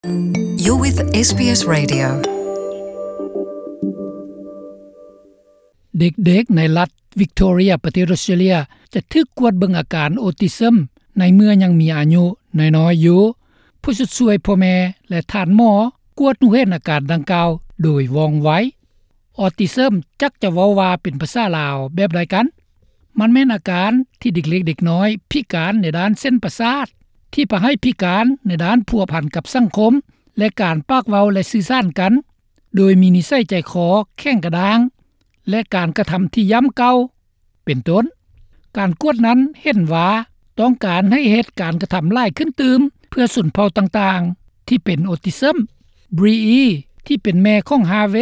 You're with ເອສບີເອສ Radio. ເດັກໆໃນລັດວິກໂທເຣຍ ປະເທດອົດສະຕຣາເລຍ ຈະຖືກກວດເບິ່ງອາການໂອຕິຊຶມໃນເມື່ອຍັງມີອາຍຸນ້ອຍໆຢູ່. ຜູ້ຊົດຊ່ວຍພໍ່ແມ່ ແລະ ທ່ານໝໍກວດຮູ້ເຫັນອາການດັ່ງກ່າວໂດຍວ່ອງໄວ. ອອທິຊຶມຈັກຈະເວົ້າວ່າເປັນພາສາລາວແບບໃດກັນ? ມັນແມ່ນອາການທີ່ເດັກເລັກເດັກນ້ອຍພິການໃນດ້ານເສັ້ນປະສາດ ທີ່ພາໃຫ້ພິການໃນດ້ານພົວພັນກັບສັງຄົມ ແລະ ການປາກເວົ້າ ແລະ ສື່ສານກັນ, ໂດຍມີນິໄສໃຈຄໍແຂງກະດ້າງ ແລະ ການກະທຳທີ່ຢ້ຳເກົ່າ ເປັນຕົ້ນ. ການກວດນັ້ນເຫັນວ່າຕ້ອງການໃຫ້ເຮັດການກະທຳຫຼາຍຂຶ້ນຕື່ມ ເພື່ອຊົນເຜົ່າຕ່າງໆທີ່ເປັນໂອຕິຊຶມ. ບຣີອີ ທີ່ເປັນແມ່ຂອງຮາເວ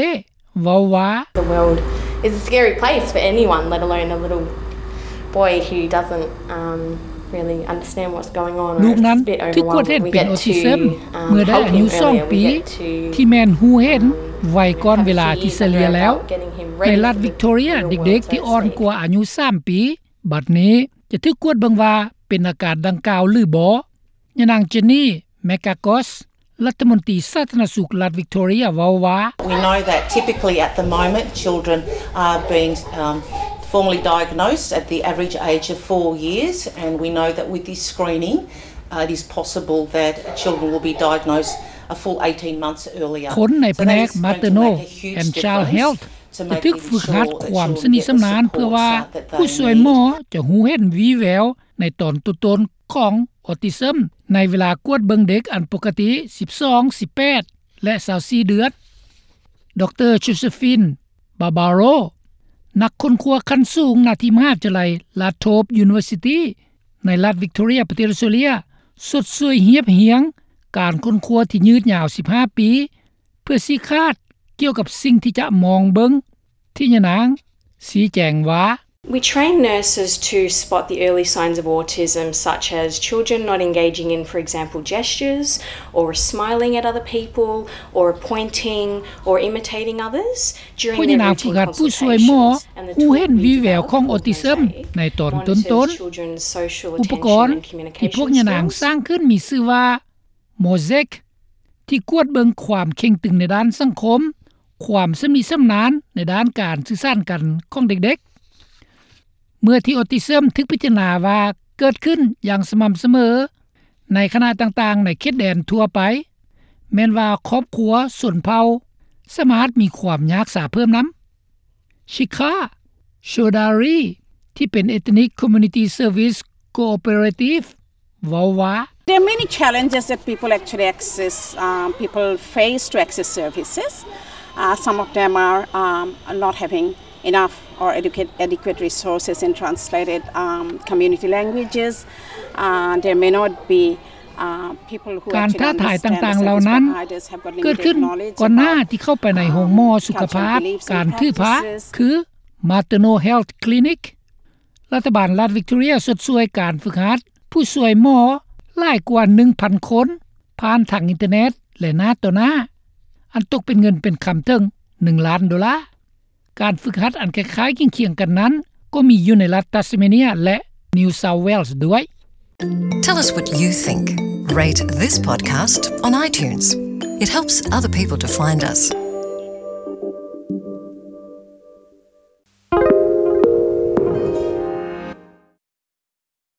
ເວົ້າວ່າ The world is a scary place for anyone, let alone a little boy who doesn't, um, really understand what's going on. ລູກນັ້ນຖືກກວດເຫັນເປັນໂອທິຊຶມເມື່ອໄດ້ອາຍຸສອງປີ ທີ່ແມ່ນຮູ້ເຫັນໄວກ່ອນເວລາທີ່ສະເລ່ຍແລ້ວ. ໃນລັດວິກໂທເຣຍ ເດັກໆທີ່ອ່ອນກວ່າອາຍຸສາມປີ ບັດນີ້ຈະຖືກກວດເບິ່ງວ່າເປັນອາການດັ່ງກ່າວຫຼືບໍ່. ຍານາງ Jenny McGargos ລັດຖະມົນຕີສາທາລະນະສຸກລັດວິກໂທເຣຍ ເວົ້າວ່າ We know that typically at the moment children are being, um, formally diagnosed at the average age of four years, and we know that with this screening, uh, it is possible that children will be diagnosed a full eighteen months earlier. ຄົນໃນພະແນກ Maternal and Child Health ຈະຖືກຝຶກຫັດຄວາມຊຳນິຊຳນານ ເພື່ອວ່າຜູ້ຊ່ວຍໝໍຈະຮູ້ເຫັນວີ່ແວວໃນຕອນຕົ້ນໆຂອງອອທິຊຶມ ໃນເວລາກວດເບິ່ງເດັກອັນປົກກະຕິ ສິບສອງ ສິບແປດ ແລະ ຊາວສີ່ເດືອນ. ດຣ Josephine Barbaro ນັກຄົ້ນຄວ້າຂັ້ນສູງນາທີ່ມະຫາວິທະຍາໄລ Latrobe University ໃນລັດວິກໂທເຣຍ ປະເທດອົດສະຕຣາເລຍ ຊົດຊ່ວຍຮຽບຮຽງການຄົ້ນຄວ້າທີ່ຍືດຍາວສິບຫ້າປີ ເພື່ອຊີ້ຂາດກ່ຽວກັບສິ່ງທີ່ຈະມອງເບິ່ງ ທີ່ຍານາງຊີ້ແຈງວ່າ We train nurses to spot the early signs of autism, such as children not engaging in, for example, gestures, or smiling at other people, or pointing, or imitating others. ພວກຍານາງຝຶກຫັດຜູ້ຊ່ວຍໝໍຮູ້ເຫັນວີ່ແວວຂອງອອທິຊຶມໃນຕອນຕົ້ນໆ. ອຸປະກອນທີ່ພວກຍານາງສ້າງຂຶ້ນມີຊື່ວ່າ Mosaic ທີ່ກວດເບິ່ງຄວາມເຄັ່ງຕຶງໃນດ້ານສັງຄົມ, ຄວາມຊຳນິຊຳນານໃນດ້ານການສື່ສານກັນຂອງເດັກໆ. ເມື່ອທີ່ອອທິຊຶມຖືກພິຈາລະນາວ່າເກີດຂຶ້ນຢ່າງສະໝ່ຳສະເໝີໃນຄະນະຕ່າງໆໃນເຂດແດນທົ່ວໄປ, ແມ່ນວ່າຄອບຄົວຊົນເຜົ່າສາມາດມີຄວາມຍາກຊາເພີ່ມນຳ. Shikha Chaudhary ທີ່ເປັນ Ethnic Community Service Cooperative ເວົ້າວ່າ There are many challenges that people actually access, um, people face to access services. Uh, some of them are, um, not having enough or adequate, adequate resources in translated, um, community languages. Uh, there may not be ການທ້າທາຍຕ່າງໆເຫຼົ່ານັ້ນເກີດຂຶ້ນກ່ອນໜ້າທີ່ເຂົ້າໄປໃນໂຮງໝໍສຸຂະພາບ, ການຖືພາ ຄື Maternal Health Clinic. ລັດຖະບານລັດວິກໂທເຣຍຊົດຊ່ວຍການຝຶກຫັດຜູ້ຊ່ວຍໝໍຫຼາຍກວ່າໜຶ່ງພັນຄົນ ຜ່ານທາງອິນເຕີເນັດ ແລະ ໜ້າຕໍ່ໜ້າ, ອັນຕົກເປັນເງິນເປັນຄຳເຖິງໜຶ່ງລ້ານໂດລາ. ການຝຶກຫັດອັນຄ້າຍໆຄຽງໆກັນນັ້ນ ກໍມີຢູ່ໃນລັດ Tasmania ແລະ New South Wales ດ້ວຍ. Tell us what you think. Rate this podcast on iTunes. It helps other people to find us.